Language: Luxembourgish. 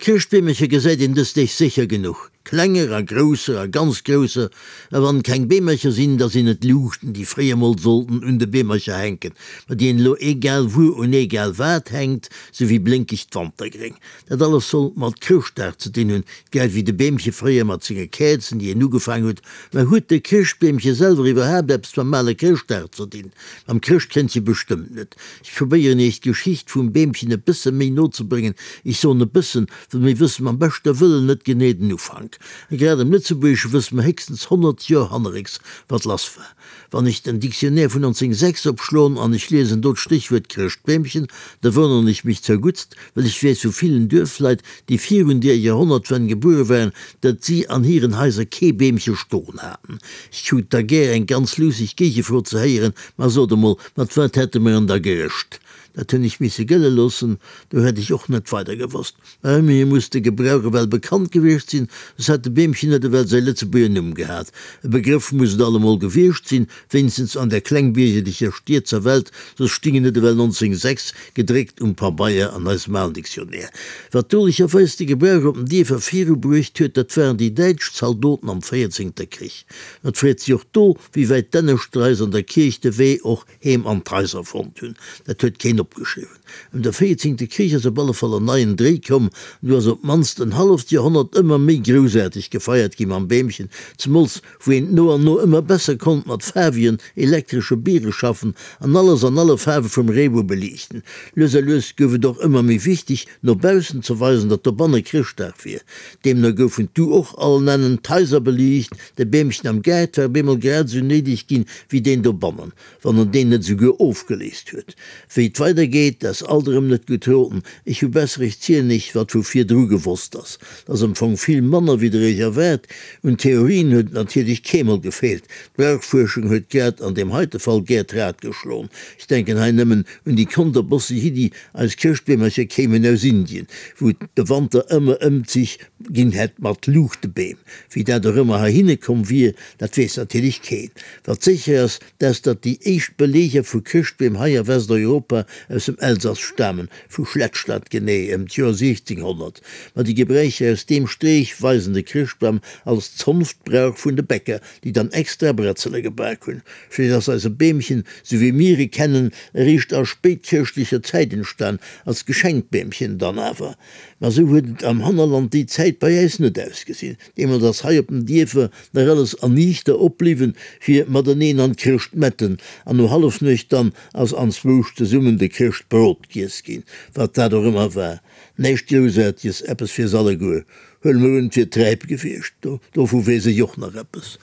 Chrëschtbeemercher gesäit een dës Deeg sécher genuch, klenger a grousser a ganz grousser. A wann et keng Beemercher sinn, da sinn et Luuchten, déi fréier mol sollten un de Beemercher hänken, ma déi een elo egal wuer un egal wat hänkt, sou wéi blénkegt Wantergréng. Dat alles soll mat Chrëschtdag ze dinn hunn, grad wéi de Beemche fréier mat senge Käerzen, déi een ugefaang huet. Mä huet de Chrëschtbeemche selwer iwwerhaapt eppes mam ale Chrëschtdag ze dinn? Mam Chrëschtkëndche bestëmmt net. Ech probéieren iech d'Geschicht vum Beemchen e bësse méi no ze bréngen. Ech soen e bëssen, well mir wësse mam beschte Wëllen net genee den Ufank. A grad am Lëtzebuergesche wësse mer héchstens 100 Joer hannerrécks, wat lass war. Wann ech den Dictionnaire vun 1906 opschloen an ech liesen do d'Stéchwuert Chrëschtbeemchen, da wonneren ech mech zerguttst, well ech weess vu villen Duerfleit, déi virun deer Joerhonnertwenn gebuere waren, datt si an hiren Haiser kee Beemche stoen haten. Ech krut da gär eng ganz luusseg Géigefro ze héieren, Ma sot emol, mat wat hätte mer en da gerëscht? Dat hunn ech misse gëlle loossen, do hätt ech och net weider gewosst. Mä ëmmerhi muss de Gebrauch ewell bekannt gewiescht sinn, soss hätt de Beemchen net ewell säi Lëtzebuerger Numm gehat. E Begrëff muss et allemol gewiescht sinn, wéinstens an der klengbiergerlecher Stierzer Welt, soss sting en net ewell 1906 gedréckt um Pabeier an eisem alen Dictionnaire. Wat dolecherweis de Gebrauch op den Dierfer virubruecht huet, dat waren déi däitsch Zaldoten am véierzéngter Krich. Et freet sech och do, wéi wäit d'Enneschdreis an der Kierch de Wee och heem an d'Haiser fonnt hunn. Dat huet keen opgeschriwwen. Ëm de véierzéngte Krich ass op alle Fall en neien Dréi komm, an du ass op d'mannst en halleft Joerhonnert ëmmer méi groussaarteg gefeiert gi mam Beemchen, zemools wou een no an no ëmmer besser konnt mat faarwegen elektresche Biere schaffen an alles an alle Faarwe vum Reebou beliichten. Lues a lues gouf et och ëmmer méi wichteg, no baussen ze weisen, datt dobanne Chrëschtdag wier. Deemno goufen du och all nennen d'Haiser beliicht, de Beemchen am Gaart war bemol grad esou néideg ginn, wéi deen dobannen, wann en deen net esouguer ofgeléist huet. Wéi et weider geet, dat ass alt erëm net gutt roden. Ech hu besser, ech zielen iech, wat vu virdru gewosst ass. Dat ass am Fong vill manner, wéi der iech erwaart. Un Theorien huet et natierlech keemol gefeelt. D'Brauchfuerschung huet grad an deem heite Fall gär d'Rad geschloen. Ech denken hei nëmmen un déi konterbosseg Iddi, Eis Chrëschtbeemercher kéimen aus Indien, wou et de Wanter ëmmer Ëmzich ginn hätt mat Luuchtebeem. Wéi dat och ëmmer heihinne komm wier, dat weess natierlech keen. Wat sécher ass, dat ass, datt déi éischt Beleeger vu Chrëschtbeem hei a Westeuropa aus dem Elsass stamen, vu Schlettstadt genee, ëm d'Joer 1600. Ma déi Gebräicher aus deem Streech weisen de Chrëschtbam als Zonftbrauch vun de Bäcker, déi dann extra Bretzele gebak hunn. Vläicht ass eise Beemchen, sou wéi mir e kennen, eréischt a spéitchrëschtlecher Zäit entstan, als Geschenkbeemchen dann awer. Ma sou huet et am Hannerland déi Zäit bei äis net ausgesinn. Deemools ass hei op den Dierfer nach alles erniichter opbliwwen, fir mateneen an d'Chrëschtmetten, an no Hallefnuecht dann ass anzwousch zesummen de Chrëschtbrot giess ginn, wat dat och ëmmer war. Näischt Groussaarteges, eppes fir s'alleguer. Huele mer un, et wier Träip gewiescht, dovu weess ech och nach eppes.